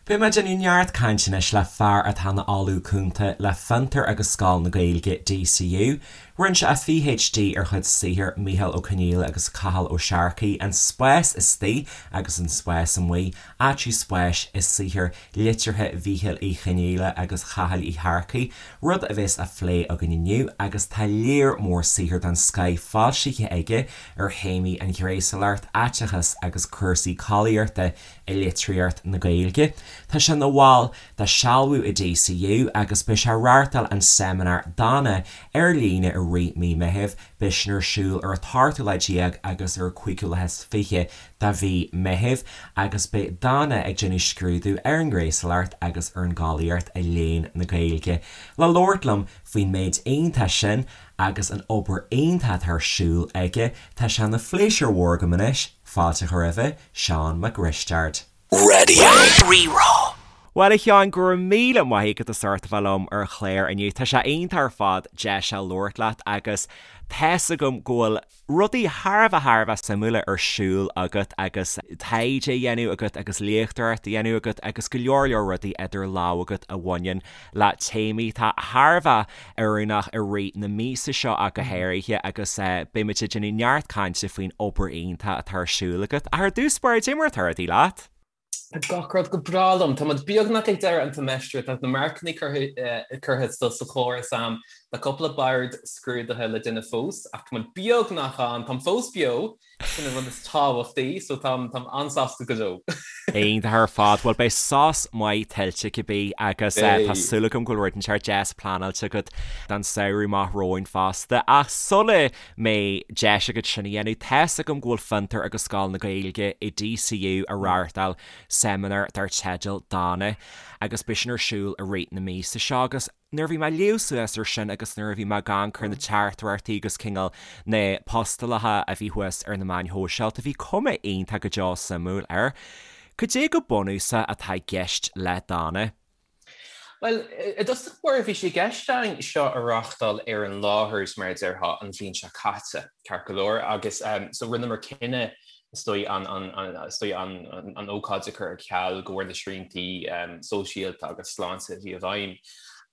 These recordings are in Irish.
Beidh mé ag déanamh neart cainte anois le fear atá ina Ollamh Cúnta le Fiontar agus Scoil na Gaeilge, DCU. Rinne sé a PhD ar chuid saothair Mícheál Ó Conghaile agus Cathal Ó Searcaigh, An Spás Istigh agus An Spás Amuigh, Áitiú Spáis i Saothar Liteartha Mhíchíl Uí Chonghaile agus Chathail Uí Shearcaigh, rud a bheas á phlé againn inniu agus tá léar mór saothar den scoith foilsithe aige ar théamaí an ghnéasúlacht, aiteachas agus cúrsaí collaíochta i litríocht na Gaeilge. Tá sé ina bhall de Sealbhú i DCU agus beidh sé ag reáchtáil an seimineár Dana ar líne i rith mí Meithimh. Beidh sin ar siúl ar an t-ochtú lá déag agus ar an cúigiú lá is 20 de mhí Meithimh agus beidh Dana ag déanamh scrúdú ar an ngnéasúlacht agus ar an gcollaíocht i léann na Gaeilge. Le labhairt liom faoin méid iontach sin agus an obair iontach atá ar siúl aige, tá sé ina phléisiúr mhór agam anois fáilte a chur roimhe, Seán Mac Risteaird. Radio Rí-Rá. Bhuel a Sheáin, go raibh míle maith agat as ucht a bheith liom ar an chlár inniu. Tá sé iontach ar fad deis a labhairt leat agus tá's agam go bhfuil rudaí thar a bheith thar a bheith suimiúla ar siúl agat agus taighde á dhéanamh agat agus léachtóireacht á dhéanamh agat agus go leor leor rudaí idir lámha agat a bhaineann le téamaí atá thar a bheith oiriúnach i rith na míosa seo ach go háirithe agus beidh muid ag déanamh neart cainte faoin obair iontach atá ar siúl agat. Ach ar dtús báire, cad é mar atá rudaí leat? Tá gach rud go breá liom. Tá muid beagnach ag deireadh an tseimeastair, tá na marcanna curtha sa chóras a'm, tá cúpla bord scrúdaithe le déanamh fós ach tá muid beagnach ann, táim fós beo! Sin an rud is tábhachtaí, so táim an-sásta go deo. Iontach ar fad. Bhuel, beidh sos maith tuillte cibé agus tá súil agam go bhfuil rud inteacht deas pleanáilte agat don samhradh amach romhainn fosta. Ach sula mbeidh deis agat sin a dhéanamh, tá's agam go bhfuil Fiontar agus Scoil na Gaeilge i DCU ag reáchtáil seimineár dar teideal Dana agus beidh sin ar siúl i rith na míosa seo agus Nuair a bhí mé ag léamh suas air sin agus nuair a bhí mé ag amharc ar na teachtaireachtaí agus cineál na postálacha a bhí thuas ar na meáin shóisialta, bhí cuma iontach go deo suimiúil air. Cad é go bunúsach atá i gceist le Dana? Bhuel, i dtosach báire bhí sé i gceist againn seo a reáchtáil ar an láthair, mar a déarfá, an bhliain seo caite, ceart go leor, agus so rinneamar cinneadh is dóigh an is dóigh an an ócáid a chur ar ceal de bharr na sriantaí sóisialta agus sláinte a bhí i bhfeidhm.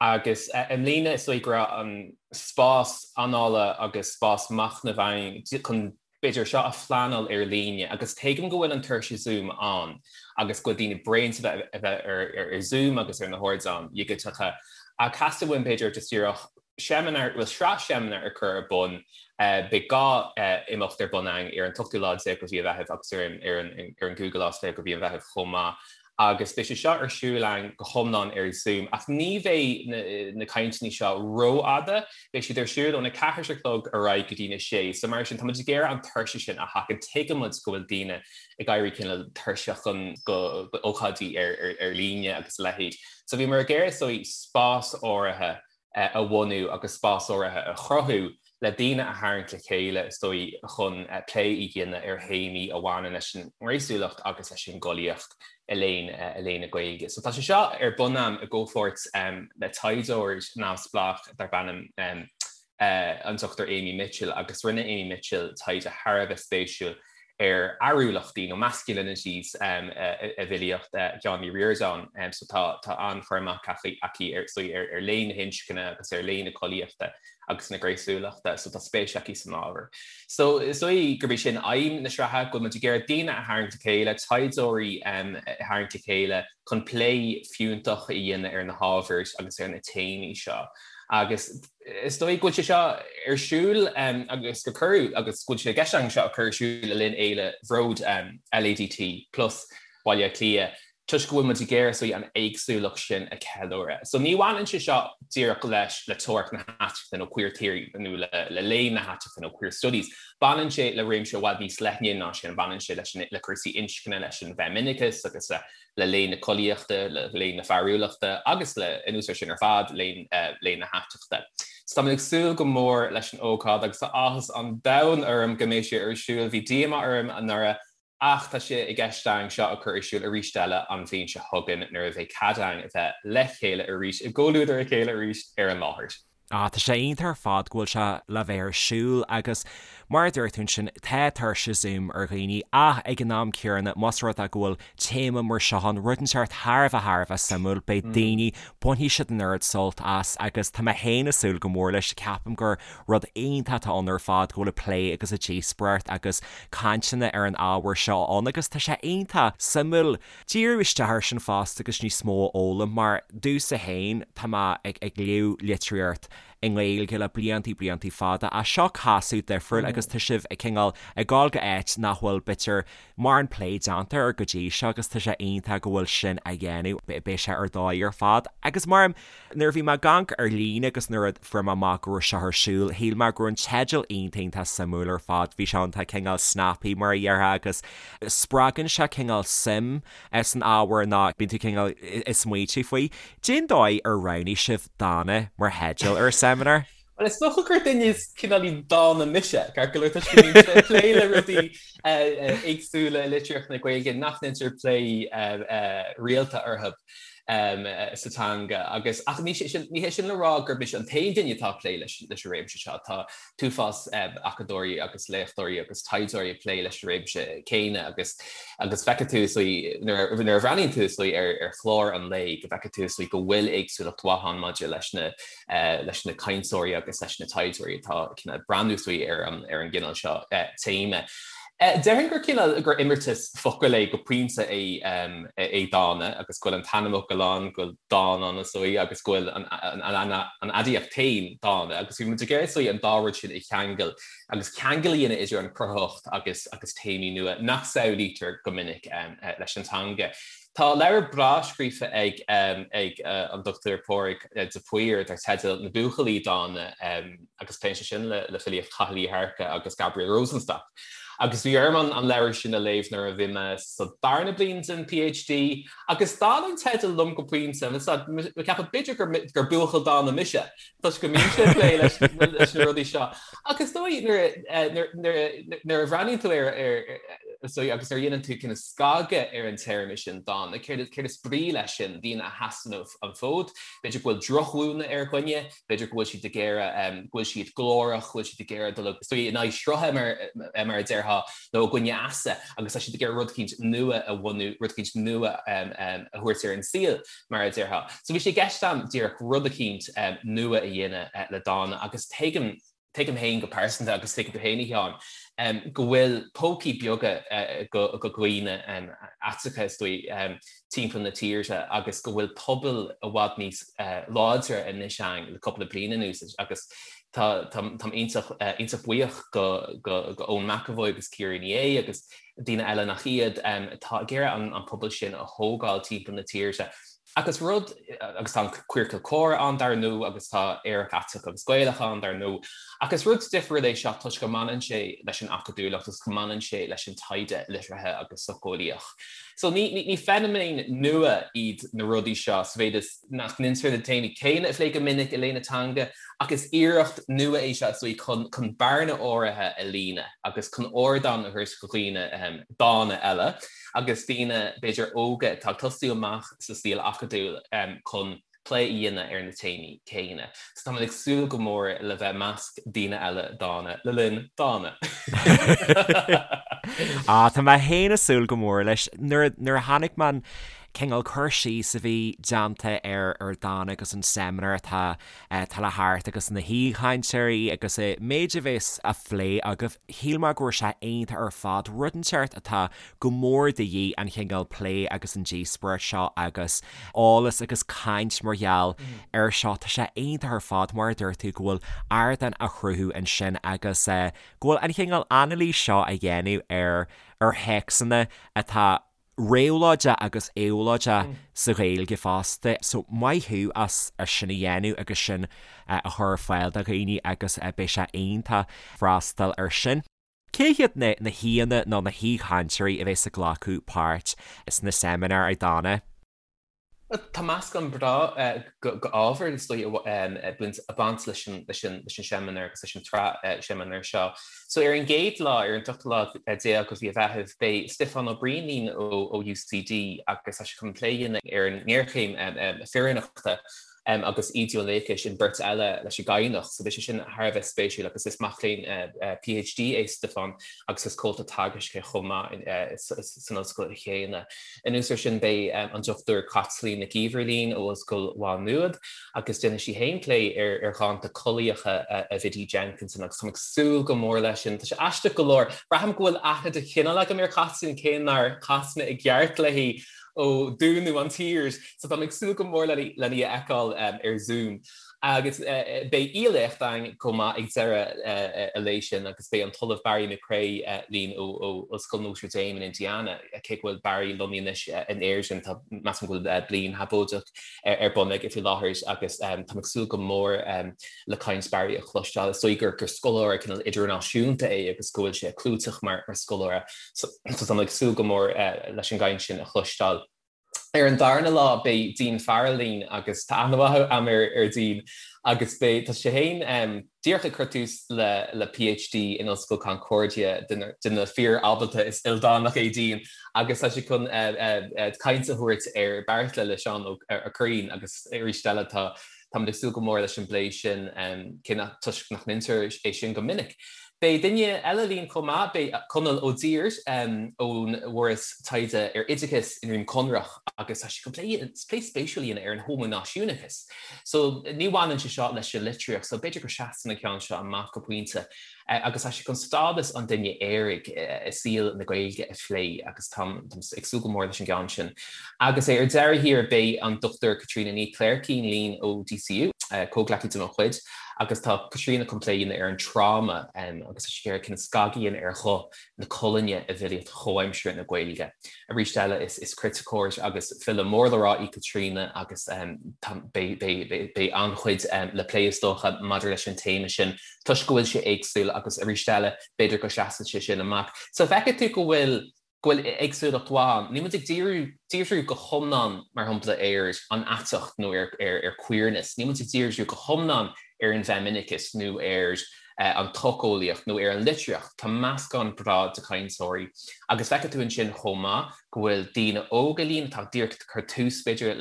Agus i mbliana is dóigh go raibh an spás anála agus spás machnaimh againn chun b'fhéidir seo a phleanáil ar líne agus tuigim go bhfuil an tuirse Zoom ann agus go bhfuil daoine bréan de a bheith ar Zoom agus ar na hardáin dhigiteacha ach theastaigh uainn b'fhéidir just díreach seimineár, bhuel sraith seimineár a chur ar bun. Beidh 2 imeacht ar bun againn ar an t-ochtú lá déag de mhí an Mheithimh agus ar an ar an ar an gcúigiú lá is 20 de mhí an Mheithimh chomh maith. Agus beidh sé seo ar siúl againn go hiomlán ar Zoom ach ní bheidh na na cainteanna seo rófhada, beidh siad ar siúl óna ceathair a chlog ar aghaidh go dtína sé. So mar sin tá muid ag iarraidh an tuirse sin a sheachaint. Tuigeann muid go bhfuil daoine ag éirí cineál tuirseach chun go ócáidí ar ar ar líne agus a leithéid. So bhíomar ag iarraidh is dóigh spás áirithe a bhunú agus spás áirithe a chruthú le daoine a tharraingt le chéile, is dóigh, chun plé a dhéanamh ar théamaí a bhaineann leis an ngnéasúlacht agus leis an gcollaíocht i léann i léann na Gaeilge. So tá sé seo ar bun agam i gcomhpháirt le taighdeoir neamhspleách darb ainm an Dr Amy Mitchell agus rinne Amy Mitchell taighde thar a bheith spéisiúil ar fhearúlachtaí nó masculinities i bhfilíocht Sheáin Uí Ríordáin. So tá tá an-chur amach aici ar ar léann na hinscne agus ar léann na collaíochta agus na gnéasúlachta, so tá spéis aici san ábhar. So is dóigh gurb é sin aidhm na sraithe, go bhfuil muid ag iarraidh daoine a tharraingt le chéile, taighdeoirí a tharraingt le chéile chun plé fiúntach a dhéanamh ar na hábhair agus ar na téamaí seo. Agus Is dóigh go bhfuil sé seo ar siúl agus gur cuireadh agus go bhfuil sé i gceist againn seo a chur ar siúl le linn Fhéile Bhród LADT Plus Baile Átha Cliath toisc go bhfuil muid ag iarraidh is dóigh an éagsúlacht sin a cheiliúradh. So ní bhaineann sé seo díreach leis le teoiric na haiteachta nó queer theory nó le le léann na haiteachta nó queer studies. Baineann sé le réimse i bhfad níos leithne ná sin, baineann sé leis an le cúrsaí inscne, leis an bhfeimineachas agus le le léann na collaíochta, le léann na fearúlachta agus le, anuas air sin ar fad, léann léann na haiteachta. So tá mé ag súil go mór leis an ócáid agus tá áthas an domhain orm go mbeidh sé ar siúl. Bhí díomá orm anuraidh ach tá sé i gceist againn seo a chur ar siúl arís eile an bhliain seo chugainn nuair a bheidh cead againn a bheith le chéile arís, i gcomhluadar a chéile arís ar an láthair. Ah, tá sé iontach ar fad go bhfuil sé le bheith ar siúl agus mar a dúirt tú ansin, tá tuirse Zoom ar dhaoine ach ag an am céanna, más rud é go bhfuil téama mar seo ann, rud inteacht thar a bheith thar a bheith suimiúil, beidh daoine, bainfidh siad an oiread sult as agus tá mé féin ag súil go mór leis, ceapaim gur rud iontach atá ann ar fad go bhfuil an plé agus an díospóireacht agus cainteanna ar an ábhar seo ann agus tá sé iontach suimiúil. Díriú isteach air sin fosta agus níos mó a fhoghlaim mar domhsa féin tá mé ag ag léamh litríocht i nGaeilge le bliantaí bliantaí fada ach seo casadh difriúil agus tá sibh ag cineál ag dul go áit nach bhfuil b'fhéidir mórán plé déanta air go dtí seo agus tá sé iontach go bhfuil sin á dhéanamh beidh sé ar dóigh ar fad agus mar Nuair a bhí mé ag amharc ar líne agus nuair a fuair mé amach go raibh seo ar siúl, shíl mé go raibh an teideal iontach iontach suimiúil ar fad. Bhí sé iontach cineál snappy mar a déarfá agus spreagann sé cineál suim san ábhar nó bíonn tú cineál ag smaoitiú faoi. Cén dóigh ar roghnaigh sibh Dána mar theideal ar an seimineár? Bhuel, is dócha gur duine cineáilín dána mise, ceart go leor, toisc go mbímse ag plé le rudaí éagsúla i litríocht na Gaeilge nach ndéantar plé rialta orthu sa teanga. Agus, ach ní hé sin le rá gur mise an t-aon duine atá ag plé leis an réimse seo. Tá t-uafás acadóirí agus léachtóirí agus taighdeoirí ag plé leis an réimse céanna agus agus feicfidh tú is dóigh, nuair a bhreathnaíonn tú is dóigh ar chlár an lae go bhfeicfidh tú is dóigh go bhfuil éagsúlacht mhaith ann maidir leis na leis na cainteoirí agus leis na taighdeoirí atá ag breathnú is dóigh ar an ar an gcineál seo téama. Déarfainn gur cineál gur imeartas focal é go pointe é é dána agus go bhfuil an t-ainmfhocal ann, go bhfuil dán ann is dóigh agus go bhfuil an an aidiacht féin dána agus bhí muid ag iarraidh is dóigh an dá rud sin a cheangal agus ceangal a dhéanamh idir an chruthaitheacht agus agus téamaí nua nach samhlaítear go minic leis an teanga. Tá leabhar breá scríofa ag ag an Dr Pádraig de Paor dar teideal Na Buachaillí Dána agus pléann sé sin le filíocht Chathail Uí Shearcaigh agus Gabriel Rosenstock. Agus bhí orm an leabhar sin a léamh nuair a bhí mé sa darna bliain den PhD agus d'fhan an teideal liom go pointe, mé ag ceapadh b'fhéidir gur buachaill dána mise toisc go mbímse ag plé leis na rudaí seo. Ach is dóigh nuair a bhreathnaíonn tú ar is dóigh agus nuair a dhéanann tú cineál scagadh ar an téarma sin dána, céard is brí leis sin, daoine a sheasann an fód, b'fhéidir go bhfuil drochmhúineadh ar dhuine, b'fhéidir go bhfuil siad ag iarraidh, go bhfuil siad glórach, go bhfuil siad ag iarraidh dul is dóigh in aghaidh srutha mar a déarfá, nó i gcoinne easa agus tá siad ag iarraidh rud eicínt nua a bhunú, rud eicínt nua a thabhairt ar an saol mar a déarfá. So bhí sé i gceist agam díreach rud eicínt nua a dhéanamh le dána agus tuigim, tuigim féin go pearsanta agus tuigeann tú féin a Sheáin, go bhfuil pócaí beaga go dhaoine aiteacha is dóigh timpeall na tíre agus go bhfuil pobail i bhfad níos láidre anois ann le cúpla bliain anuas agus tá táim iontach iontach buíoch go go go Eoin McEvoy agus Ciara Ní É agus daoine eile nach iad atá ag iarraidh an pobal sin a thógáil timpeall na tíre. Agus rud, agus tá an Queercal Comhrá ann dar ndóigh agus tá Aerach Aiteach agus Gaelach ann dar ndóigh, ach is rud difriúil é seo toisc go mbaineann sé leis an acadúlacht agus go mbaineann sé leis an taighde liteartha agus socheolaíoch. So ní, ní, ní feiniméin nua iad na rudaí seo sa mhéid is nach ndéantar na téamaí céanna a phlé go minic i léann na teanga, ach is iarracht nua é seo is dóigh chun, chun bearna áirithe a líonadh agus chun ardán a thabhairt do dhaoine dána eile. agus daoine, b'fhéidir, óga atá ag tosú amach sa saol acadúil chun plé a dhéanamh ar na téamaí céanna. So táimid ag súil go mór le bheith i measc daoine eile dána le linn Dána! Ah, tá mé féin ag súil go mór leis. Nuair a chonaic mé an cineál cur síos a bhí déanta ar ar Dána agus an seimineár atá atá le theacht agus na haoichainteoirí agus an méid a bheas á phlé agaibh, shíl mé go raibh sé iontach ar fad, rud inteacht atá go mór de dhíth, an chineál plé agus an díospóireacht seo agus eolas agus caint mar gheall air seo. Tá sé iontach ar fad, mar a dúirt tú, go bhfuil ardán á chruthú ansin agus go bhfuil an chineál anailís seo á dhéanamh ar ar théacsanna atá réabhlóideach agus éabhlóideach sa Ghaeilge fosta. So maith thú as sin a dhéanamh agus sin a chur ar fáil do dhaoine agus beidh sé iontach freastal ar sin. Cé hiad na na haíonna nó na haoichainteoirí a bheas ag glacadh páirt sna seimineáir ag Dána? Tá meascán breá d'ábhar is dóigh ag baint leis an seimineár agus leis an tsraith seimineár seo. So ar an gcéad lá, ar an tríú lá déag de mhí an Mheithimh, beidh Stiofán Ó Briain linn ó UCD agus tá sé chun plé a dhéanamh ar an ngéarchéim fireannachta. Agus Íde Ó Niallais an bheirt eile leis an gCadhnach, so beidh sé sin thar a bheith spéisiúil agus is mac léinn PhD é Stiofán agus is comhalta teagaisc é chomh maith san ollscoil chéanna. Anuas air sin beidh an Dr Caitlín Nic Íomhair linn ó Ollscoil Mhá Nuad agus déanfaidh sí féin plé ar dhánta collaíocha a Bhiddy Jenkinson agus táim ag súil go mór leis sin. Tá sé aisteach go leor, braithim go bhfuil aithne de chineál agam ar Chaitlín cé nár chas mé i gceart léi ó dúnadh an tír, so táim ag súil go mór len í a fheiceáil ar Zoom. Agus beidh aoi-léacht againn chomh maith ag deireadh an lae sin agus beidh an tOllamh Barry McCrea linn ó Ollscoil Notre Dame in Indiana, cé go bhfuil Barry lonnaithe anois in Éirinn, tá, measaim go bhfuil bliain shabóideach ar bun aige faoi láthair agus táim ag súil go mór le caint Barry a chloisteáil. Is dóigh gur scoláire cineál idirnáisiúnta é agus go bhfuil sé clúiteach mar scoláire. So táim ag súil go mór leis an gcaint sin a chloisteáil. Ar an darna lá beidh Dean Farrell linn agus tá aithne mhaith agam ar Dean agus beidh, tá sé féin díreach ag cur tús le le PhD in Ollscoil Concordia, duine fíor ábalta is ildánach é Dean agus tá sé chun caint a thabhairt ar Beartla le Seán Ó Curraoin agus arís eile tá Táimid ag súil go mór leis an bplé sin, cé nach, toisc nach ndeintear é sin go minic. Beidh duine eile linn chomh maith, beidh Conall Ó Duibhir ón bhForas Taighde ar Oideachas i nDroim Conrach agus tá sé chun plé, plé spéisiúil a dhéanamh ar an homaináisiúnachas. So ní bhaineann sé seo leis an litríocht, so b'fhéidir go seasann an ceann seo amach go pointe. Agus tá sé chun stádas an duine aeraigh i saol na Gaeilge a phlé agus táim ag súil go mór leis an gceann sin. Agus ar deireadh thiar beidh an Dr Caitríona Ní Chléirchín linn ó DCU, comhghleacaí de mo chuid, agus tá Caitríona chun plé a dhéanamh ar an tráma agus tá sí ag iarraidh cineál scagadh a dhéanamh ar ghuth na colainne i bhfilíocht chomhaimseartha na Gaeilge. Arís eile is criticeoir agus file mór le rá í Caitríona agus beidh an-chuid le plé is dócha maidir leis an téama sin. toisc go bhfuil sé éagsúil agus arís eile, b'fhéidir go seasann sé sin amach. So feicfidh tú go bhfuil, go bhfuil éagsúlacht mhaith ann. Níl muid ag díriú, díriú go hiomlán, mar shampla, ar an aiteacht nó ar, ar, ar queerness. Níl muid ag díriú go hiomlán ar an bhfeimineachas nó ar an tsocheolaíocht nó ar an litríocht. Tá meascán breá de chainteoirí. Agus feicfidh tú ansin chomh maith go bhfuil daoine óga linn atá díreach ag cur tús, b'fhéidir,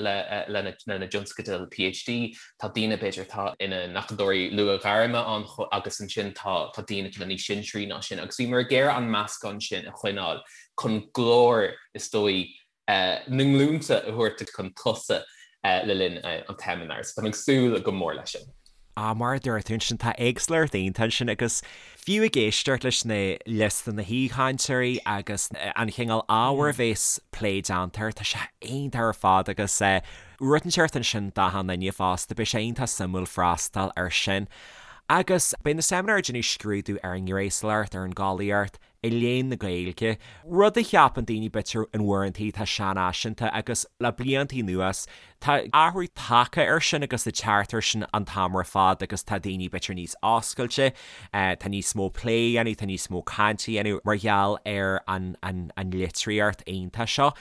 lena dtionscadail PhD, tá daoine, b'fhéidir, atá ina n-acadóirí luathghairme ann agus ansin tá daoine cineál níos sinsearaí ná sin agus bhíomar ag iarraidh an meascán sin a choinneáil chun glór, is dóigh, na nglúnta a thabhairt chun tosaigh le linn an tseimineáir. So táim ag súil go mór leis sin. Ah, mar a dúirt tú ansin, tá éagsúlacht iontach ansin agus fiú ag éisteacht leis na liosta na haoichainteoirí agus an chineál ábhair a bhéas plé déanta air, tá sé iontach ar fad agus rud inteacht ansin d'achan duine fosta, beidh sé iontach suimiúil freastal air sin. Agus beidh na seimineáir ag déanamh scrúdú ar an ngnéasúlacht, ar an gcollaíocht, i léann na Gaeilge, rud a cheapann daoine b'fhéidir in uaireantaí atá seanfhaiseanta agus le bliantaí anuas tá athrú tagtha air sin agus ag teacht air sin an t-am ar fad agus tá daoine b'fhéidir níos oscailte, tá níos mó plé á dhéanamh, tá níos mó cainte á dhéanamh mar gheall ar an an litríocht iontach seo.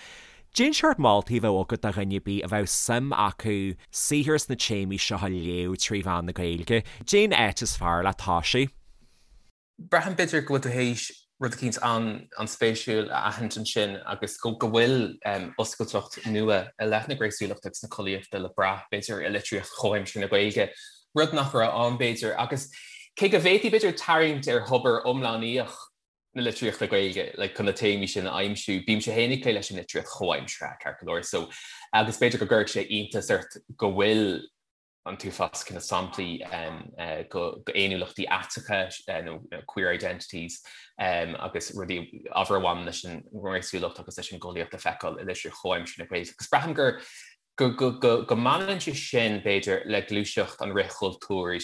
Cén seort moltaí a bheadh agat do dhuine ar bith a bheadh suim acu saothar sna téamaí seo a léamh trí mheán na Gaeilge? Cén áit is fearr le toisiú? Braithim b'fhéidir go bhfuil tú théis rud eicínt an-spéisiúil a aithint ansin agus go bhfuil oscailteacht nua i leith na gnéasúlachta agus na collaíochta le brath, b'fhéidir, i litríocht chomhaimseartha na Gaeilge, rud nach raibh ann, b'fhéidir. Agus cé go bhféadfaí, b'fhéidir, tarraingt ar thobar iomlánaíoch na litríochta Gaeilge like chun na téamaí sin a aimsiú, bímse féin ag plé leis an litríocht chomhaimseartha, ceart go leor, so agus b'fhéidir go gcuirfeadh sé iontas ort go bhfuil an t-uafás cineál samplaí d'fhéiniúlachtaí aiteacha nó queer identities agus rudaí, ábhar a bhaineann leis an ngnéasúlacht agus leis an gcollaíocht a feiceáil i litríocht chomhaimseartha na Gaeilge. Agus braithim gur go mbaineann sé sin, b'fhéidir, le gluaiseacht an fhrithchultúir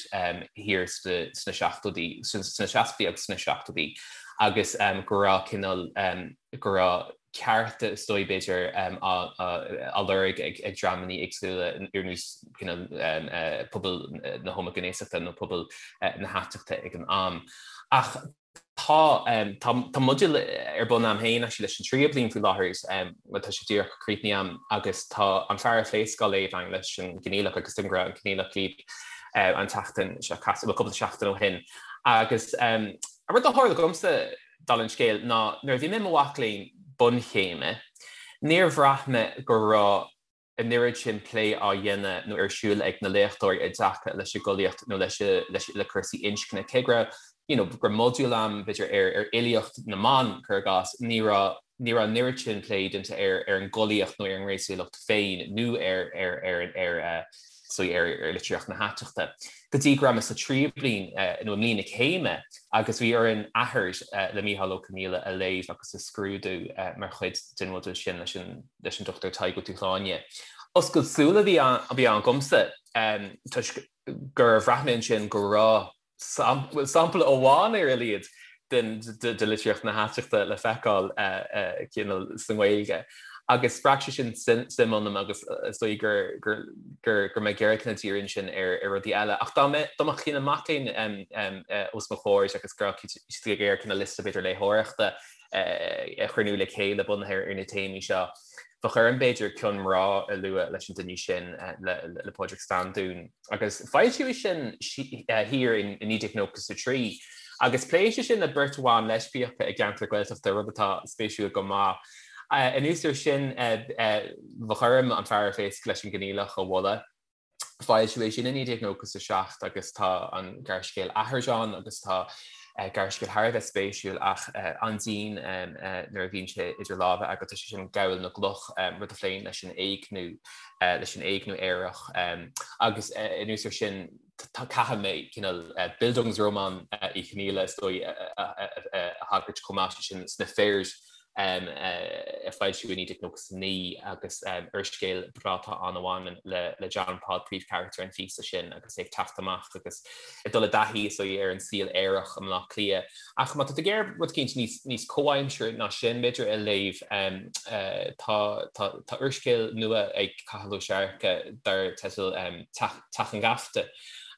thiar sna seachtóidí, sna seascaidí agus sna seachtóidí agus go raibh cineál, go raibh cearta, is dóigh, b'fhéidir, á lorg ag dreamanna éagsúla ar nós pobal na homaighnéasachta nó pobal na haiteachta ag an am. Ach tá tá modúl ar bun a'm féin actually leis an tríú bliain faoi láthair, bhuel tá sé díreach críochnaithe a'm agus tá An Fear a Phléasc á léamh a'inn leis an gCoinníollach agus tuigim go raibh an Coinníollach libh an tseachtain seo caite, bhuel cúpla seachtain ó shin. Agus an rud a tharla dhomsa, dála an scéil, ná nuair a bhí mé i mo mhac léinn bunchéime, níor bhraith mé go raibh. an oiread sin plé á dhéanamh nó ar siúl ag na léachtóirí i dtaca leis an gcollaíocht nó leis leis le cúrsaí inscne. Cé go raibh you know go raibh modúl ann b'fhéidir ar ar fhilíocht na mban, cuir i gcás, ní raibh ní raibh an oiread sin plé déanta ar ar an gcollaíocht nó ar an ngnéasúlacht féin nó ar ar ar ar eh, so ar ar litríocht na haiteachta. Go dtí go raibh mé sa tríú bliain eh, nó i mbliain na céime agus bhí orainn Athair eh, le Mícheál Ó Conghaile a léamh agus a scrúdú eh, mar chuid den mhodúl sin leis an leis an Dr Tadhg Ó Dúshláine. Oscailt súl a bhí ann dhomsa toisc gur bhraith mé ansin go raibh sampla amháin ar a laghad de litríocht na haiteachta le feiceáil cineál sa nGaeilge. Agus spreag sé sin suim ionam agus is dóigh gur gur mé ag iarraidh cineál díriú ansin ar rudaí eile. Ach dá mbeadh cineál mac léinn os mo chomhair agus go raibh siad ag iarraidh cineál liosta b'fhéidir léitheoireachta a chruinniú le chéile bunaithe ar na téamaí seo. Bheadh orm, b'fhéidir, Cion Mná a lua leis an duine sin, le Pádraig Standún. Agus foilsíodh é sin thiar in 1993. Agus pléann sé sin le beirt bhan leispiacha i gceantar Gaeltachta, rud atá spéisiúil go maith. Anuas air sin, bheadh orm An Fear ar Phéasc leis an gCoinníollach a mholadh. Foilsíodh é sin i 1997 agus tá an gearrscéal Athair ann agus tá gearrscéal thar a bheith spéisiúil ach an-dian nuair a bhíonn sé idir lámha agat, tá sé sin Gabhal na gCloch, rud a phléann leis an éigniú, leis an éigniú aerach agus anuas air sin caithfidh mé cineál Bildungsroman Uí Chonghaile is dóigh a thagairt chomh maith, sé sin Sna Fir. a foilsíodh i 1999 agus úrscéal breá atá ann a bhaineann le John Paul, príomhcharachtar an phíosa sin agus é ag teacht amach agus ag dul i dtaithí is dóigh ar an saol aerach i mBleá Cliath. Ach má tá tú ag iarraidh rud eicínt níos níos comhaimseartha ná sin b'fhéidir a léamh tá tá tá úrscéal nua ag Cathal Ó Searcaigh dar teideal Teach Teach an Gheafta.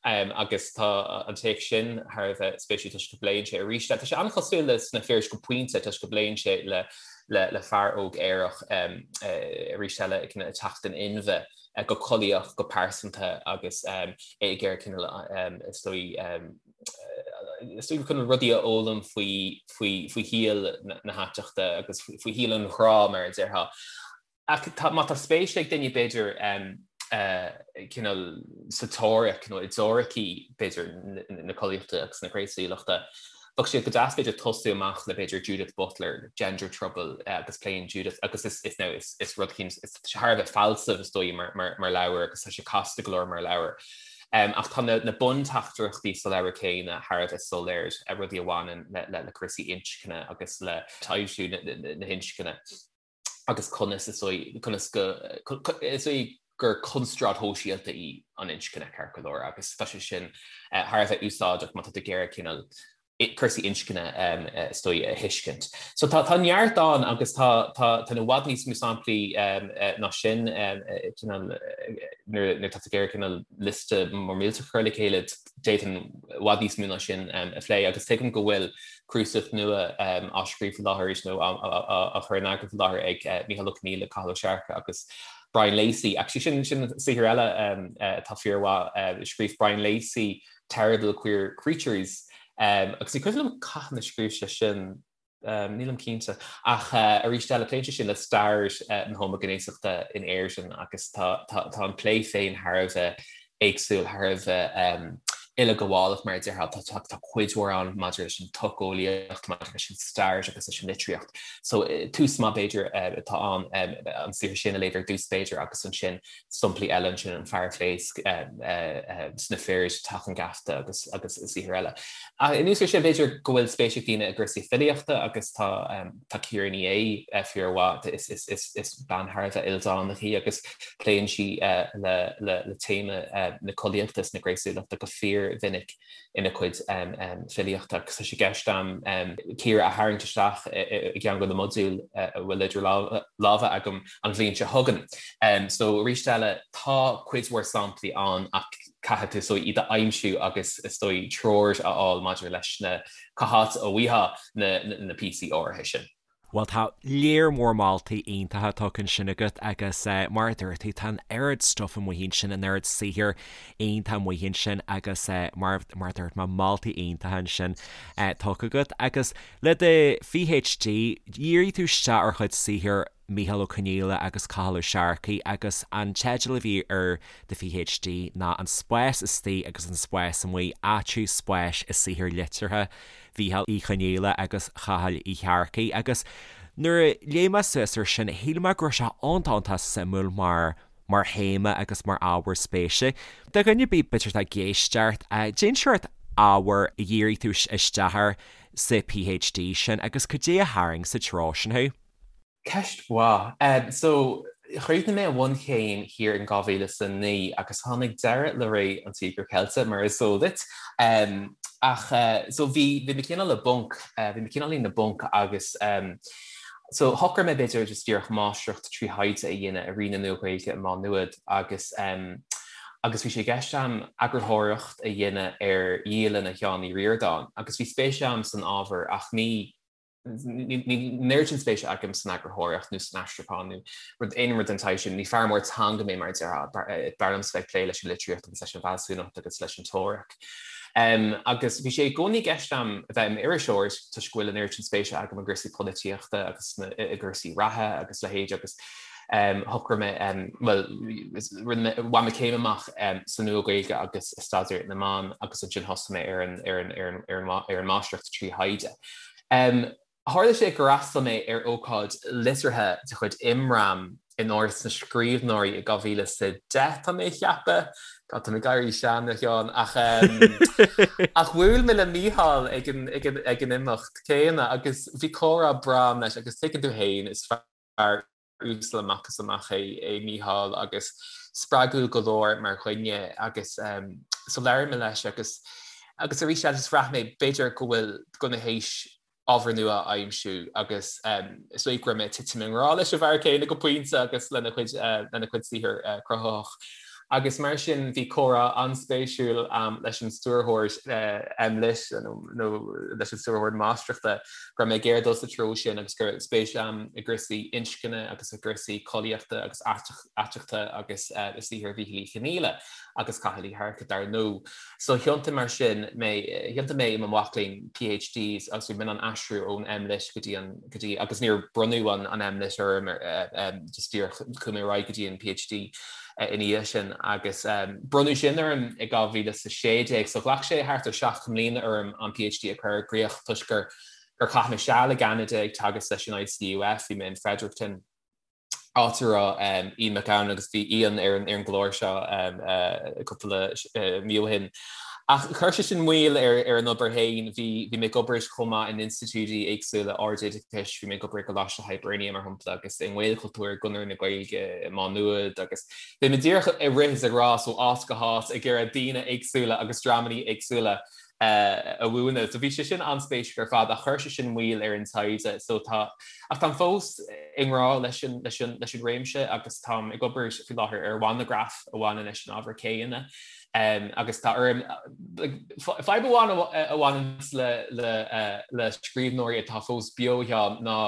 Agus tá an téacs sin thar a bheith spéisiúil toisc go bpléann sé arís le, tá sé an-chosúil le Sna Fir go pointe toisc go bpléann sé le le fear óg aerach arís eile ag teacht in inmhe go collaíoch, go pearsanta agus é ag iarraidh cineál is dóigh is dóigh chun rudaí a fhoghlaim faoi faoi faoi shaol na haiteachta agus faoi shaol an ghrá mar a déarfá. Ach tá, má tá spéis ag duine b'fhéidir cineál sa teoiric nó i dteoiricí b'fhéidir na collaíochta agus na gnéasúlachta, bheadh sé go deas b'fhéidir tosú amach le b'fhéidir Judith Butler, Gender Trouble agus pléann Judith agus is is now is is rud eicínt is thar a bheith fealsamh is dóigh mar mar mar leabhar agus tá sé casta go leor mar leabhar. Ach tá na na bunteachtaireachtaí sa leabhar céanna thar a bheith soiléir, rudaí a bhaineann le le le cúrsaí inscne agus le taibhsiú na na na hinscne. agus conas is dóigh, conas go, is dóigh gur constráid shóisialta í an inscne, ceart go leor, agus tá sé sin thar a bheith úsáideach má tá tú ag iarraidh cineál cúrsaí inscne is dóigh a thuiscint. So tá tá neart ann agus tá tá tá i bhfad níos mó samplaí ná sin cineál nuair nuair atá tú ag iarraidh cineál liosta mór millteach a chur le chéile d'fhéadfainn i bhfad níos mó ná sin a phlé agus tuigim go bhfuil cnuasach nua á scríobh faoi láthair arís nó á chur in eagar faoi láthair ag Mícheál Ó Conghaile, Cathal Ó Searcaigh agus Brian Lacey. Actually sin sin saothar eile atá fíormhaith. Scríobh Brian Lacey Terrible Queer Creatures agus ní cuimhin liom cathain a scríobh sé sin. Nílim cinnte. Ach arís eile, pléann sé sin le stair na homaighnéasachta in Éirinn agus tá an plé féin thar a bheith éagsúil, thar a bheith uileghabhálach mar a déarfá. Tá cuid mhór ann maidir leis an tsocheolaíocht, maidir leis an stair agus leis an litríocht. So tús maith b'fhéidir atá ann an saothar sin a léamh ar dtús b'fhéidir agus ansin samplaí eile ansin, An Fear a Phléasc, Sna Fir, Teach an Gheafta agus agus saothair eile. Anuas air sin, b'fhéidir go bhfuil spéis ag daoine i gcúrsaí filíochta agus tá tá Ciara Ní É fíormhaith, is is is is bean thar a bheith ildánach í agus pléann sí le le le téama na collaíochta is na gnéasúlachta go fíormhinic. ina cuid filíochta agus tá sé i gceist agam Ciara a tharraingt isteach i gceann de na modúil a bhfuil idir lámha agam an bhliain seo chugainn. So arís eile, tá cuid mhór samplaí ann ach caithfidh tú is dóigh iad a aimsiú agus is dóigh treoir a fháil maidir leis na cá háit a bhfaighfeá na píosaí áirithe sin. Bhuel, tá léar mór moltaí iontacha tugtha ansin agat agus mar a dúirt tú, tá an oiread stuif amuigh ansin, an oiread saothair iontach amuigh ansin agus mar mar a dúirt mé, moltaí iontacha ansin tugtha agat. Agus le do PhD, dhírigh tú isteach ar chuid saothair. Mícheál Ó Conghaile agus Cathal Ó Searcaigh agus an teideal a bhí ar do PhD ná An Spás Istigh agus an Spás Amuigh, Áitiú Spáis i Saothair Liteartha Mhíchíl Uí Chonghaile agus Chathail Uí Shearcaigh agus nuair a léigh mé suas ar sin shíl mé go raibh sé iontach iontach suimiúil mar mar théama agus mar ábhar spéise. Do dhuine ar bith b'fhéidir atá ag éisteacht, cén seort ábhair a dhírigh tú isteach air sa PhD sin agus cad é a tharraing sa treo sin thú? Ceist mhaith. So, chríochnaigh mé an bhunchéim thiar in 2009 agus tháinig deireadh le ré an Tíogair Cheilte, mar is eol duit. Ach, so bhí, bhí mé cineál i bponc, bhí mé cineál i bponc agus so shocraigh mé b'fhéidir just díreach máistreacht trí thaighde a dhéanamh i Roinn na Nua-Ghaeilge i Má Nuad agus agus bhí sé i gceist a'm eagarthóireacht a dhéanamh ar dhialanna Sheáin Uí Ríordáin agus bhí spéis a'm san ábhar ach ní Níl an oiread sin spéise agam san eagarthóireacht nó san aistriúchán nó rud aon rud den tsaghas sin. Ní fear mór teanga mé mar a déarfá. B'fhearr liomsa bheith ag plé leis an litríocht agus leis an bhfealsúnacht agus leis an teoiric. Agus bhí sé i gcónaí i gceist a'm a bheith i m'iriseoir toisc go bhfuil an oiread sin spéise agam i gcúrsaí polaitíochta agus i gcúrsaí reatha agus leithéid agus shocraigh mé, bhuel, rinne mé, bhain mé céim amach sa Nua-Ghaeilge agus i Staidéar na mBan agus ansin thosaigh mé ar an, ar an, ar an, ar an, ar an máistreacht trí thaighde. Tharla sé gur fhreastail mé ar ócáid liteartha de chuid Imram in Áras na Scríbhneoirí i 2010, tá mé a cheapadh. God, tá mé ag éirí sean, a Sheáin, ach ach bhuail mé le Mícheál ag an, ag an, ag an imeacht céanna agus bhí comhrá breá agam leis agus tuigeann tú féin, is fear uasal amach is amach é é Mícheál agus spreagúil go leor mar dhuine agus so labhair mé leis agus agus arís eile just bhraith mé b'fhéidir go bhfuil go bhfuil mé théis ábhar nua a aimsiú agus is dóigh go raibh mé ag titim i ngrá leis an bhfear céanna go pointe agus lena chuid lena chuid saothar cruthaitheach. Agus mar sin bhí comhrá an-spéisiúil a'm leis an stiúrthóir MLitt nó leis an stiúrthóir máistreachta go raibh mé ag iarraidh dul sa treo sin agus go raibh spéis a'm i gcúrsaí inscne agus i gcúrsaí collaíochta agus aiteachta agus i saothar Mhíchíl Uí Chonghaile agus Chathail Uí Shearcaigh dar ndóigh. So thiontaigh mar sin mé, thiontaigh mé i mo mhac léinn PhD agus bhí mé in ann aistriú ón MLitt go dtí an, go dtí, agus níor bronnadh an an MLitt orm just díreach chuaigh mé ar aghaidh go dtí an PhD ina dhiaidh sin agus bronnadh sin orm i 2016 so ghlac sé thart ar 7 mbliana orm an PhD a chur i gcrích toisc gur gur chaith mé seal i gCeanada ag teagasc leis an ICUF, bhí mé in Fredericton, áit a raibh Ian Mac Gabhann agus bhí Ian ar an ar an gclár seo cúpla mí ó shin. Ach chuir sé sin moill ar ar an obair féin, bhí bhí mé ag obair chomh maith in institiúidí éagsúla ardoideachais, bhí mé ag obair i gColáiste Hibernia mar shampla agus i nGaelchultúr, i gConradh na Gaeilge i Má Nuad agus bhí mé díreach ag rith is ag rás ó áit go háit ag iarraidh daoine éagsúla agus dreamanna éagsúla a mhúineadh. So bhí sé sin an-spéisiúil ar fad ach chuir sé sin moill ar an taighde so tá ach táim fós i ngrá leis an leis an leis an réimse agus táim ag obair faoi láthair ar mhonagraf a bhaineann leis an ábhar céanna. Um, agus tá orm fadhb amháin a bhaineann le le le scríbhneoirí atá fós beo ná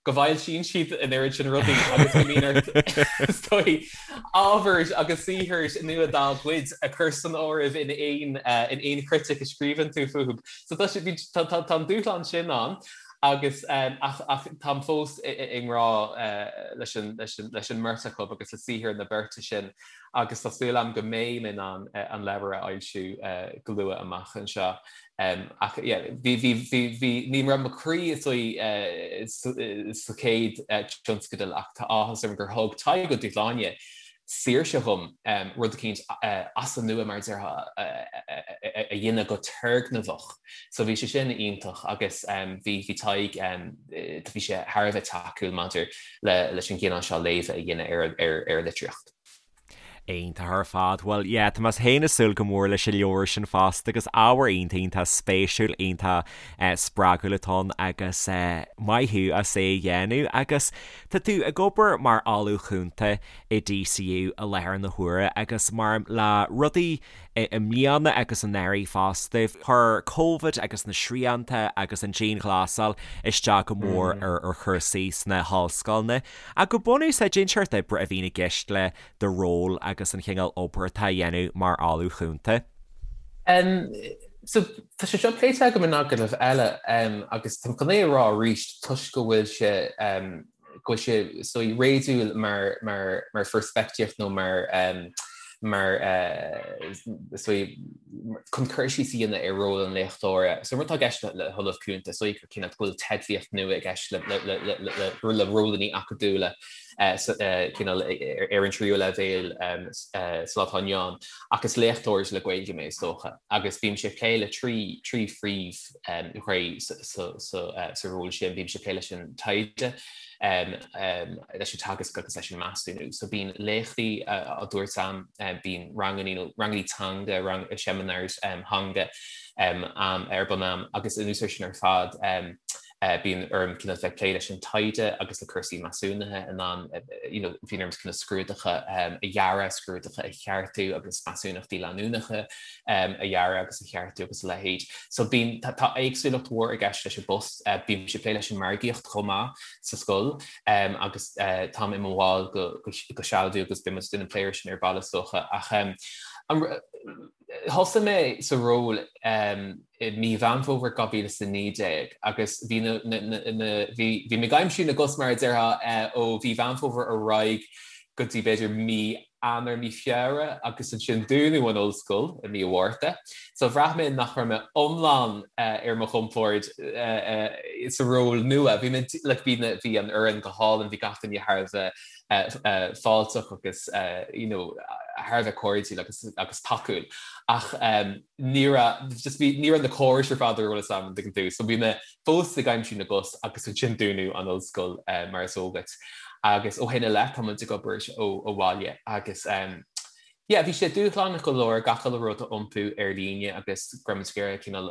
go bhfoilsíonn siad an oiread sin rudaí agus go mbíonn ort is dóigh ábhar agus saothar nua dá gcuid a chur san áireamh in aon in aon chritic a scríobhann tú fúthu. So tá sé tá tá tá an dúshlán sin ann agus ach ach táim fós i ngrá leis an leis an leis an mbeirt acu agus le saothar na beirte sin agus tá súil agam go mbeidh mé in ann an leabhar a fhoilsiú go luath amach anseo. Ach yeah, bhí, bhí, bhí, bhí, ní raibh mo chroí is dóigh sa chéad tionscadal ach tá áthas orm gur thug Tadhg Ó Dúshláine saoirse dhom rud eicínt as an nua mar a déarfá a dhéanamh go turgnamhach. So bhí sé sin iontach agus bhí, bhí Tadhg, bhí sé thar a bheith tacúil maidir le, leis an gcineál seo léamha a dhéanamh ar, ar, ar litríocht. Iontach ar fad. Bhuel, yeah, tá mé féin ag súil go mór leis an leabhar sin fosta agus ábhar iontach, iontach spéisiúil, iontach spreagúil atá ann agus maith thú as é a dhéanamh. Agus tá tú ag obair mar Ollamh Cúnta i DCU i láthair na huaire agus mar le rudaí i mbliana agus anuraidh fosta, chuir Covid agus na srianta agus an dianghlasáil isteach go mór ar chúrsaí sna hollscoileanna. Ach go bunúsach, cén seort oibre a bhíonn i gceist le do ról agus an chineál obair atá á dhéanamh mar Ollamh Chúnta? So, tá sé seo pléite agam in agallamh eile agus táim chun é a rá arís toisc go bhfuil sé. go bhfuil sé is dóigh réadúil mar mar mar pheirspictíocht nó mar mar is dóigh chun cur síos a dhéanamh ar ról an léachtóra. So an rud atá i gceist le hOllamh Cúnta is dóigh gur cineál go bhfuil teidlíocht nua i gceist le le le le le rólanna acadúla cineál ar an tríú leibhéal sa lá atá inniu ann ach is léachtóir le Gaeilge mé is dócha agus bímse ag plé le trí trí phríomhghné sa ról sin, bímse ag plé leis an taighde, leis an teagasc agus leis an measúnú. So bíonn léachtaí á dtabhairt a'm, bíonn ranganna nó ranganna teanga, seminars teanga ar bun a'm agus anuas air sin ar fad, Bíonn orm cineál bheith ag plé leis an taighde agus le cúrsaí measúnaithe in ann, you know, bíonn orm cineál scrúduithe a dhearadh, scrúduithe a cheartú agus measúnachtaí leanúnacha a dhearadh agus a cheartú agus a leithéid. So bíonn, tá éagsúlacht mhór i gceist leis an bpost. Bímse ag plé leis an margaíocht chomh maith sa scoil agus táim i mo bhall go sealadach agus beidh muid ag déanamh plé air sin ar ball is dócha. Ach an, Thosaigh mé sa ról i mí Mheán Fómhair 2019 agus bhí na, na, bhí, bhí mé ag aimsiú na gcos mar a déarfá ó mhí Mheán Fómhair ar aghaidh go dtí b'fhéidir mí Eanáir, mí Feabhra agus ansin dúnadh an ollscoil i mí an Mhárta. So bhraith mé nach raibh mé iomlán ar mo chompord sa ról nua. Bhí mé, like, bhí na, bhí an fhoireann go hálainn, bhí gach duine thar a bheith fáilteach agus you know thar a bheith cairdiúil agus agus tacúil ach ní raibh just bhí ní raibh na córais ar fad ar eolas agam an dtuigeann tú so bhí mé fós ag aimsiú na gcos agus ansin dúnadh an ollscoil mar is eol duit agus ó shin i leith tá muid ag obair ó ó bhaile agus Yeah, bhí sé dúshlánach go leor gach uile rud a iompú ar líne agus go raibh muid ag iarraidh cineál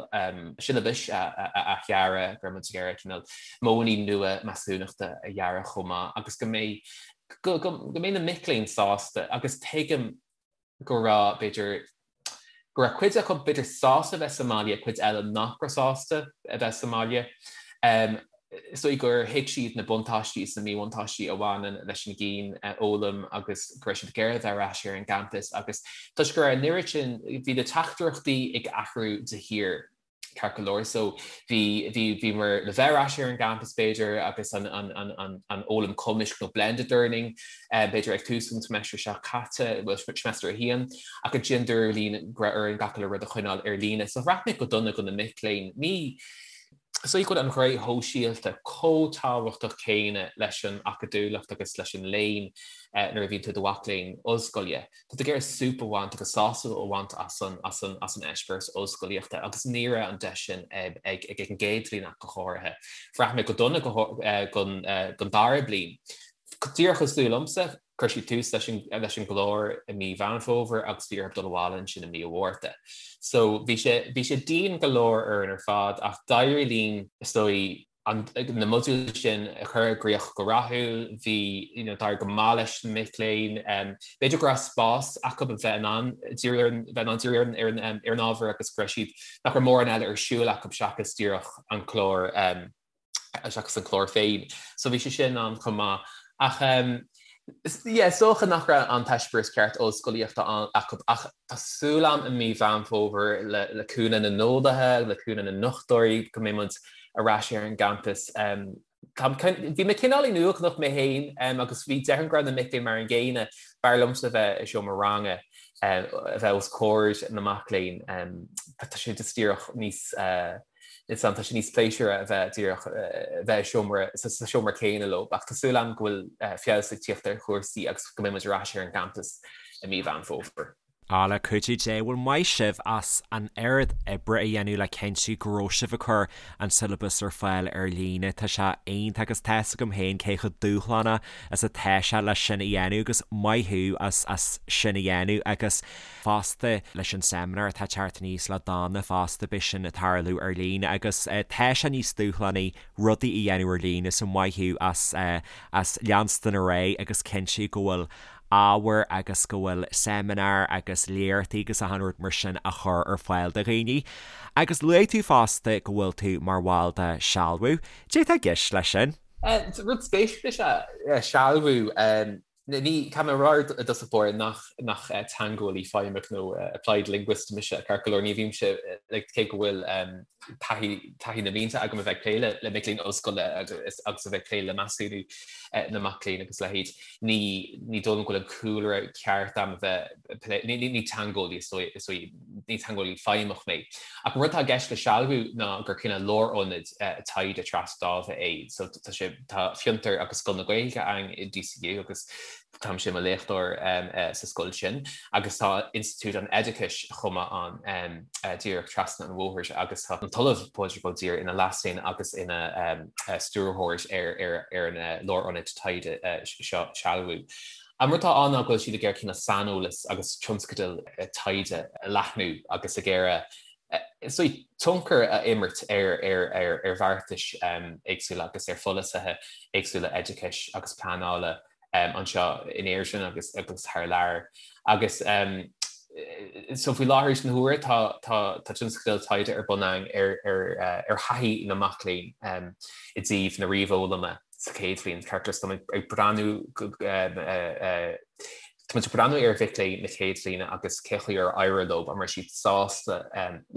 siollabais a athdhearadh, go raibh muid ag iarraidh cineál modhanna nua measúnachta a dhearadh chomh maith agus go mbeidh, go, go, go mbeidh na mic léinn sásta agus tuigim go raibh, b'fhéidir, go raibh cuid acu b'fhéidir sásta a bheith sa mbaile, cuid eile nach raibh sásta a bheith sa mbaile. Is dóigh gur thuig siad na buntáistí is na míbhuntáistí a bhaineann leis an gcianfhoghlaim agus go raibh siad ag iarraidh a bheith ar ais ar an gcampas agus toisc go raibh an oiread sin, bhí na teachtaireachtaí ag athrú de shíor, ceart go leor. So bhí, bhí, bhíomar le bheith ar ais ar an gcampas b'fhéidir agus an, an, an, an, an fhoghlaim cumaisc nó blended learning b'fhéidir ag tús an seimeastar seo caite, bhuel seimeastar a haon, ach ansin dúradh linn go raibh orainn gach uile rud a choinneáil ar líne. So bhraith mé go dona do na mic léinn. Ní, Is dóigh go bhfuil an ghné shóisialta chomh tábhachtach céanna leis an acadúlacht agus leis an léann nuair a bhíonn tú i do mhac léinn ollscoile. Tá tú ag iarraidh súp a bhaint agus sásamh a bhaint as an as an as an eispéireas ollscolaíochta agus ní raibh an deis sin ag ag an gcéad bhliain ach go háirithe. Bhraith mé go dona don don dara bliain. Díreach cosúil liomsa, Chuir siad tús leis an leis an gclár i mí Mheán Fómhair agus bhí orthu dul abhaile ansin i mí an Mhárta. So bhí sé bhí sé dian go leor orainn ar fad ach d'éirigh linn is dóigh an na modúil sin a chur i gcrích go rathúil. Bhí you know d'éirigh go maith leis na mic léinn. B'fhéidir go raibh spás acu a bheith in ann díriú ar an bheith in ann díriú ar an ar an ar an ábhar agus go raibh siad nach raibh mórán eile ar siúl acu seachas díreach an clár seachas an clár féin. So bhí sé sin ann chomh maith. Ach yeah, is dócha nach raibh an t-eispéireas ceart ollscolaíochta acu ach tá súil agam i mí Mheán Fómhair le le cúnamh na n-eolaithe, le cúnamh na ndochtúirí go mbeidh muid ar ais ar an gcampas. Bhí mé cineáilín uaigneach mé féin agus bhí déarfainn go raibh na mic léinn mar an gcéanna. B'fhearr liomsa bheith i seomra ranga, a bheith os comhair na mac léinn. Tá sé just díreach níos Is tá sé níos pléisiúra a bheith díreach a bheith i seomra sa seomra céanna leo, ach tá súil agam go bhfuil feabhas ag tíocht ar chúrsaí agus go mbeidh muid ar ais ar an gcampas i mí Mheán Fómhair. Á, le cuidiú Dé, bhuel maith sibh as an oiread oibre a dhéanamh le cinntiú go raibh sibh ag cur an siollabas ar fáil ar líne. Tá sé iontach agus tá 'fhios agam féin cé chomh dúshlánach is atá sé leis sin a dhéanamh agus maith thú as as sin a dhéanamh agus fosta leis an seimineár atá ag teacht aníos le Donna fosta, beidh sin ag tarlú ar líne agus tá sé níos dúshlánaí rudaí a dhéanamh ar líne so maith thú as as leanstan ar aghaidh agus cinntiú go bhfuil ábhar agus go bhfuil seimineáir agus léachtaí agus achan rud mar sin á chur ar fáil do dhaoine. Agus luaigh tú fosta go bhfuil tú mar bhall de Sealbhú. Cad é atá i gceist leis sin? Rud spéisiúil is ea sealbhú. Ní, caithfidh mé a rá i dtosach báire nach, nach teangeolaí feidhmeach nó applied linguist mise, ceart go leor, ní bhímse, like, cé go bhfuil taithí, taithí na mblianta agam a bheith ag plé le, le mic léinn ollscoile agus, agus a bheith ag plé le measúnú na mac léinn agus a leithéid, ní, ní dóigh liom go bhfuil an cúlra ceart agam a bheith ag plé, ní, ní, ní teangeolaí is dóigh, is dóigh, ní teangeolaí feidhmeach mé. Ach an rud atá i gceist le Sealbhú ná gur cineál lárionad taighde trasdáimhe é, so tá sé, Tá Fiontar agus Scoil na Gaeilge ann i DCU agus táimse i mo léachtóir sa scoil sin agus tá Institiúid an Oideachais chomh maith ann díreach trasna an bhóthair agus tá an tOllamh Pádraig Ó Duibhir ina Leas-Déan agus ina stiúrthóir ar an lárionad taighde seo, Sealbhú. An rud atá ann ná go bhfuil siad ag iarraidh cineál saineolas agus tionscadail taighde a leathnú agus ag iarraidh is dóigh, tionchar a imirt ar bheartais éagsúla agus ar pholasaithe éagsúla oideachais agus pleanála anseo in Éirinn agus agus thar lear. Agus so faoi láthair na huaire tá tá tá tionscadal taighde ar bun againn ar ar ar thaithí na mac léinn i dtaobh na ríomhfhoghlama sa chéad bhliain. Ceart go leor, so táimid ag breathnú Tá muid ag breathnú ar mhic léinn na chéad bhliana agus cé chaoi ar éirigh leo, an raibh siad sásta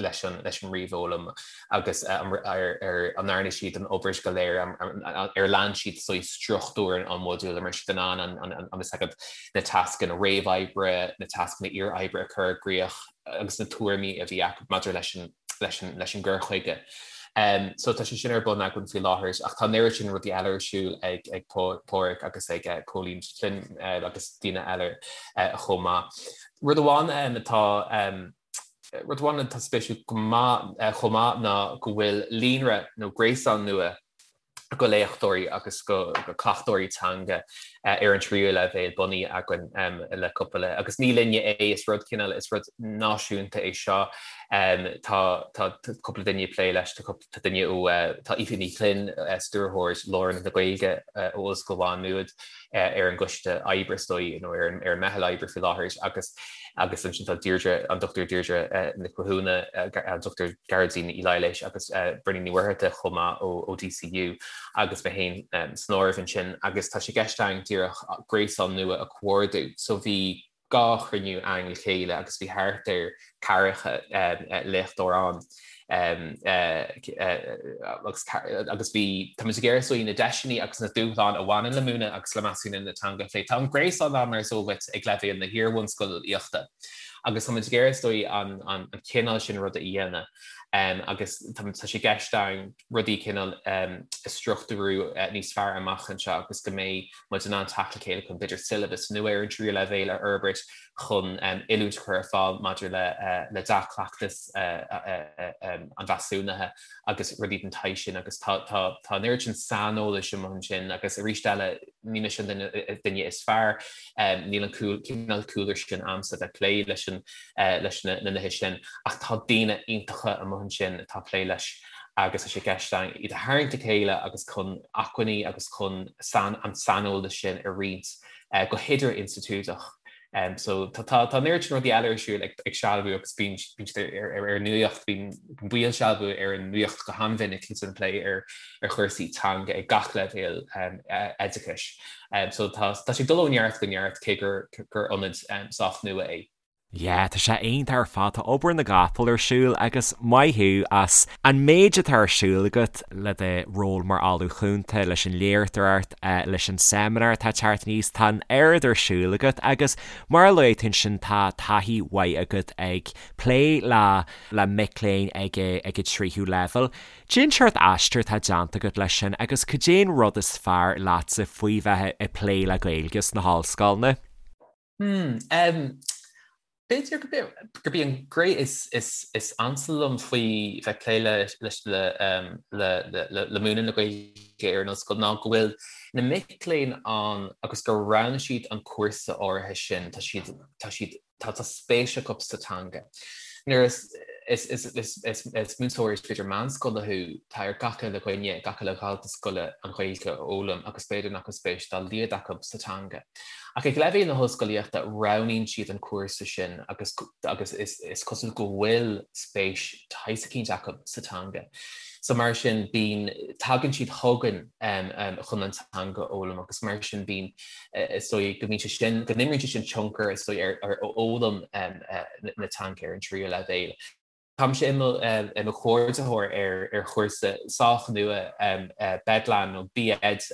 leis an leis an ríomhfhoghlaim agus ar an ndearna siad an obair go léir, ar lean siad saghas struchtúr an mhodúil, an raibh siad in ann an an is agat na tascanna réamhoibre, na tascanna iar-oibre a chur i gcrích agus na tuairimí a bhí acu maidir leis an leis an leis an gcur chuige. So tá sé sin ar bun againn faoi láthair ach tá an oiread sin rudaí eile ar siúl ag ag Páraic agus ag Cóilín Flynn agus daoine eile chomh maith. Rud amháin atá rud amháin atá spéisiúil go maith chomh maith ná go bhfuil líonra nó gréasán nua go léachtóirí agus go cleachtóirí teanga ar an tríú leibhéal bunaithe againn le cúpla, agus ní linne é, is rud cineál, is rud náisiúnta é seo. Tá tá cúpla duine ag plé leis, tá duine ó, tá Aoife Ní Ghlinn, stiúrthóir Lárionad na Gaeilge ó Ollscoil Mhá Nuad ar an gcoiste oibre is dóigh, nó ar an meitheal oibre faoi láthair agus agus ansin tá Deirdre, an Dr Deirdre Nic Mhathúna, an Dr Gearóidín Ní Laighléis agus Bríona Ní Mhuircheartaigh chomh maith ó DCU agus mé féin san áireamh ansin agus tá sé i gceist againn díreach gréasán nua a chomhordú. So bhí 2 chruinniú againn le chéile agus bhí thart ar ceathracha léachtóir ann agus agus bhí, tá muid ag iarraidh is dóigh na deiseanna agus na dúshláin a bhaineann le múineadh agus le measúnú na teanga a phlé. Tá an gréasán ann mar is eol duit ag leibhéal na hiar-bhunscolaíochta agus tá muid ag iarraidh is dóigh an cineál sin ruda a dhéanamh agus tá sé i gceist againn rudaí cineál a struchtúrú níos fearr amach anseo agus go mbeidh muid in ann teacht le chéile chun b'fhéidir siollabas nua ar an tríú leibhéal a fhorbairt chun oiliúint a chur ar fáil maidir le dea-chleachtas an mheasúnaithe agus rudaí den tsaghas sin agus tá an oiread sin saineolais amuigh ansin agus arís eile ní mise an duine is fearr, níl an cineál cúlra sin a'msa bheith plé leis an leis na nithe sin ach tá daoine iontacha amuigh ansin atá ag plé leis agus tá sé i gceist againn iad a tharraingt le chéile agus chun acmhainní agus chun an saineolas sin a roinnt go hidir-institiúideach. So tá tá an oiread sin rudaí eile ar siúl ag ag Sealbhú agus bíonn bíonn siad ar ar ar an nuacht, bíonn baill Sealbhú ar an nuacht go han-mhinic agus ag plé ar ar chúrsaí teanga ag gach leibhéal oideachais. So tá tá sé ag dul ó neart go neart cé gur gur ionad sách nua é. Yeah, tá sé iontach ar fad, tá obair na gcapall ar siúl agus maith thú as an méid atá ar siúl agat le do ról mar Ollamh Cúnta, leis an léachtóireacht, leis an seimineár atá ag teacht aníos, tá an oiread ar siúl agat agus mar a luaigh tú ansin tá taithí mhaith agat ag plé le le mic léinn ag ag an tríú leibhéal. Cén seort aistear atá déanta agat leis sin agus cad é an rud is fearr leatsa faoi bheith ag plé le Gaeilge sna hollscoileanna? Hmm, b'fhéidir gurb í an ghné is ansa liom faoi bheith ag plé le le le múineadh na Gaeilge ar an ollscoil ná go bhfuil na mic léinn ann agus gur roghnaigh siad an cúrsa áirithe sin, tá siad, tá siad, tá spéis acu sa teanga. Nuair is is múinteoir b'fhéidir meánscoile thú, tá ar gach uile dhuine, gach uile dhalta scoile an Ghaeilge a fhoghlaim agus b'fhéidir nach bhfuil spéis dá laghad acu sa teanga. Ach ag leibhéal na hollscolaíochta, roghnaíonn siad an cúrsa sin agus agus is cosúil go bhfuil spéis de shaghas eicínt acu sa teanga. So mar sin bíonn, tagann siad chugainn chun an teanga a fhoghlaim agus mar sin bíonn, is dóigh go mbíonn sé sin, go n-imríonn sé sin tionchar is dóigh ar fhoghlaim na teanga ar an tríú leibhéal. Táimse i mo chomhordaitheoir ar chúrsa sách nua BEdLAN nó B.Ed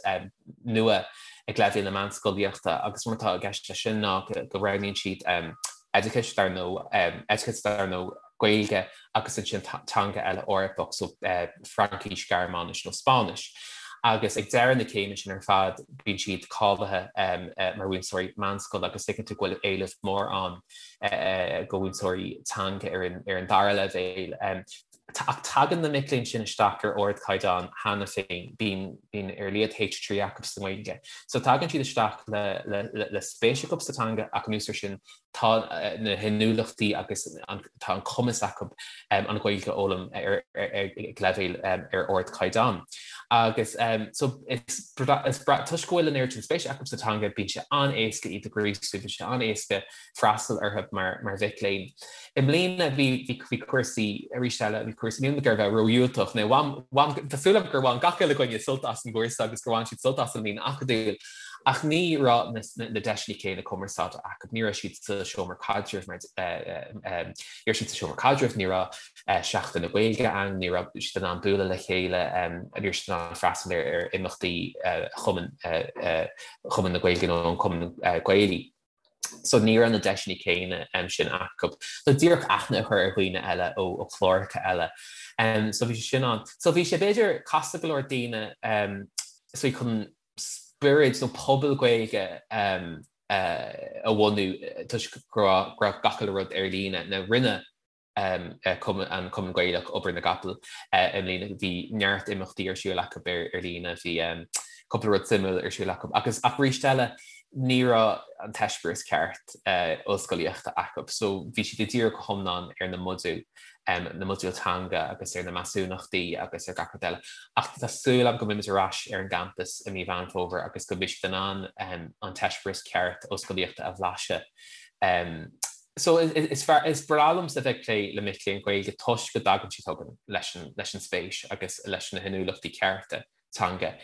nua ag leibhéal na meánscolaíochta agus mar atá i gceist leis sin ná go roghnaíonn siad oideachas dar ndóigh, oideachas dar ndóigh Gaeilge agus ansin teanga eile Eorpach, so Fraincis, Gearmáinis nó Spáinnis. Agus ag deireadh na céime sin ar fad bíonn siad cáilithe mar mhúinteoirí meánscoile agus tuigeann tú go bhfuil éileamh mór ann do mhúinteoirí teanga ar an dara leibhéal. Ach tagann na mic léinn sin isteach ar ardchaighdeán cheana féin, bíonn ar a laghad H3 acu sa nGaeilge. So tagann siad isteach le spéis acu sa teanga ach anuas air sin tá na hinniúlachtaí agus tá an cumas acu an Ghaeilge a fhoghlaim ar ag leibhéal ar ardchaighdeán. Agus so is toisc go bhfuil an oiread sin spéise acu sa teanga bíonn sé an-éasca iad a ghríosú, bíonn sé an-éasca freastal orthu mar mhic léinn. I mbliana bhí bhí cúrsaí, arís eile, bhí cúrsaí, níl mé ag iarraidh a bheith ródhiúltach, nó bhain, bhain, tá súil agam gur bhain gach uile dhuine sult as an gcúrsa agus gur bhain siad sult as an mbliain acadúil, ach ní raibh na, na deiseanna céanna cumarsáide acu, ní raibh siad sa seomra caidrimh mar, ní raibh siad sa seomra caidrimh, ní raibh Seachtain na Gaeilge ann, ní raibh siad in ann bualadh le chéile, ní raibh siad in ann freastal ar ar imeachtaí Chumann, Chumann na Gaeilge nó an Cumann Gaelaí. So ní raibh na deiseanna céanna sin acu. So díreach aithne a chur ar dhaoine eile ó chláracha eile. So bhí sé sin ann. So bhí sé b'fhéidir casta go leor daoine so chun spiorad nó pobal Gaeilge a bhunú toisc go raibh gach uile rud ar líne. Now rinne an Cumann Gaelach obair na gcapall i mbliana. Bhí neart imeachtaí ar siúl acu ar líne, bhí cúpla rud suimiúil ar siúl acu agus ach arís eile ní raibh an t-eispéireas ceart ollscolaíochta acu so bhí siad ag díriú go hiomlán ar na modúil, na modúil teanga agus ar na measúnachtaí agus ar gach rud eile. Ach tá súil agam go mbeimid ar ais ar an gcampas i mí Mheán Fómhair agus go mbeidh siad in ann an t-eispéireas ceart ollscolaíochta a bhlaiseadh. So is fearr, is breá liomsa bheith ag plé le mic léinn Gaeilge toisc go dtagann siad chugainn leis an, leis an spéis agus leis na hinniúlachtaí cearta teanga.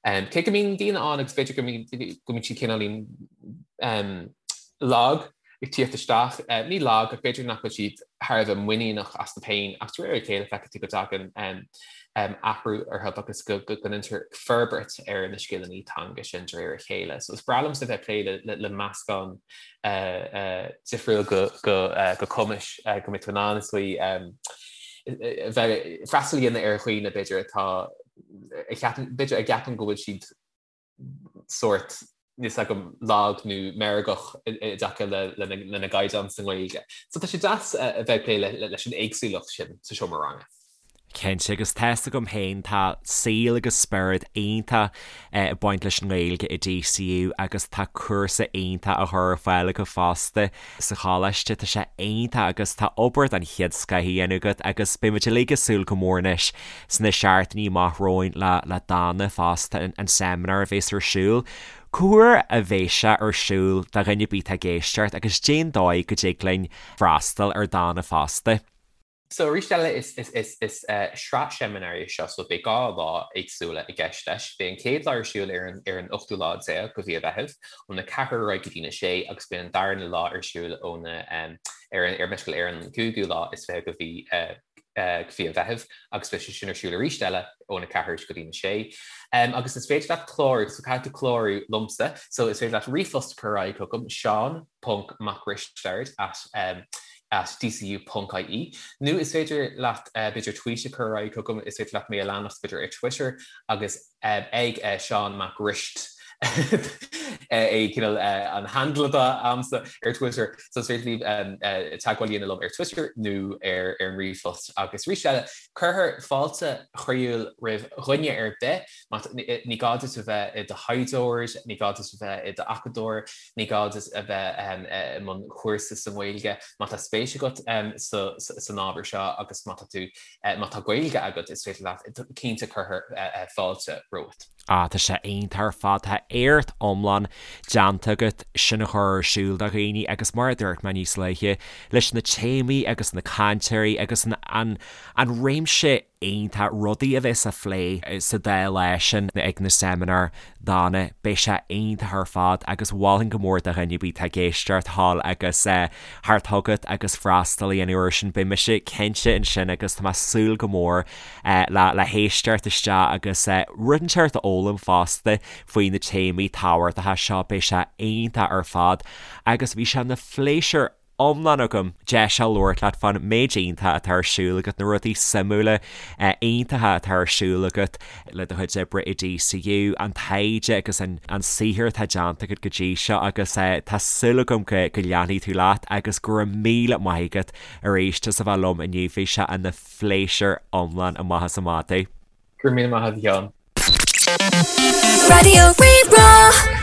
Cé go mbíonn daoine ann agus b'fhéidir go mbíonn, go mbíonn siad cineáilín lag ag tíocht isteach, ní lag ach b'fhéidir nach bhfuil siad thar a bheith muiníneach astu féin ach de réir a chéile feicfidh tú go dtagann athrú orthu agus go ndéantar forbairt ar na scileanna teanga sin de réir a chéile. So is breá liomsa bheith ag plé le meascán difriúil de chumais go mbeidh tú in ann is dóigh bheith freastal a dhéanamh ar dhaoine b'fhéidir atá a cheapann b'fhéidir a gceapann go bhfuil siad sórt níl a fhios agam lag nó meirgeach i dtaca lena gcaighdeán sa nGaeilge. So tá sé deas a bheith ag plé leis an éagsúlacht sin sa seomra ranga. Cinnte, agus tá's agam féin, tá saol agus spiorad iontach ag baint leis an nGaeilge i DCU agus tá cúrsa iontach á chur ar fáil acu fosta sa choláiste. Tá sé iontach agus tá obair den chéad scoth á dhéanamh agat agus beidh muid uilig ag súil go mór anois sna seachtainí amach romhainn le le Dana fosta, an seimineár a bhéas ar siúl. Cá huair a bhéas sé ar siúl do dhuine ar bith atá ag éisteacht agus cén dóigh go dtig linn freastal ar Dana fosta? So arís eile is is sraith seimineár é seo so beidh 2 lá éagsúla i gceist leis. Beidh an chéad lá ar siúl ar an ar an ochtú lá déag de mhí an Mheithimh óna 4 ar aghaidh go dtína 6 agus beidh an darna lá ar siúl óna ar an ar meisciúil ar an gcúigiú lá is 20 de mhí de mhí an Mheithimh agus beidh sé sin ar siúl arís eile óna 4 go dtína 6. Agus is féidir leat clárú so caithfidh tú clárú liomsa so is féidir leat ríomhphost a chur ar aghaidh chugam Seán ponc Mac Risteaird at at dcu ponc ie nó is féidir leat b'fhéidir tweet a chur ar aghaidh chugam, is féidir leat mé a leanacht b'fhéidir ar Twitter agus ag Seán Mac Rist é cineál an handle atá a'msa ar Twitter so is féidir libh teagmháil a dhéanamh liom ar Twitter nó ar an ríomhphost agus arís eile cuirfear fáilte chroíúil roimh dhuine ar bith má ní gá duit a bheith i do thaighdeoir, ní gá duit a bheith i d'acadóir, Ní gá duit a bheith i mbun cúrsa sa nGaeilge má tá spéis agat san ábhar seo agus má tá tú, má tá Gaeilge agat, is féidir leat, cinnte cuirfear fáilte romhat. Ah, tá sé iontach ar fad, tá éacht iomlán déanta agat sin a chur ar siúl do dhaoine agus mar a dúirt mé níos luaithe, leis na téamaí agus na cainteoirí agus an, an, an réimse. iontach, rudaí a bheas á phlé sa dá lá sin ag na seimineáir dána, beidh sé iontach ar fad agus mholfainn go mór do dhuine ar bith atá ag éisteacht thall agus theacht chugat agus freastal a dhéanamh air sin, beidh mise cinnte ansin agus tá mé ag súil go mór le le héisteacht isteach agus rud inteacht a fhoghlaim fosta faoi na téamaí tábhachtacha seo, beidh sé iontach ar fad agus bhí sé ina phléisiúr iomlán agam deis a labhairt leat fán méid iontach atá ar siúl agat, na rudaí suimiúla iontacha atá ar siúl agat le do chuid oibre i DCU, an taighde agus an saothar atá déanta agat go dtí seo agus tá súil agam go leanfaidh tú leat agus go raibh míle maith agat arís as a bheith liom inniu, bhí sé ina phléisiúr iomlán amach is amach é. Go raibh míle maith agat a Sheáin. Raidió Rí-Rá.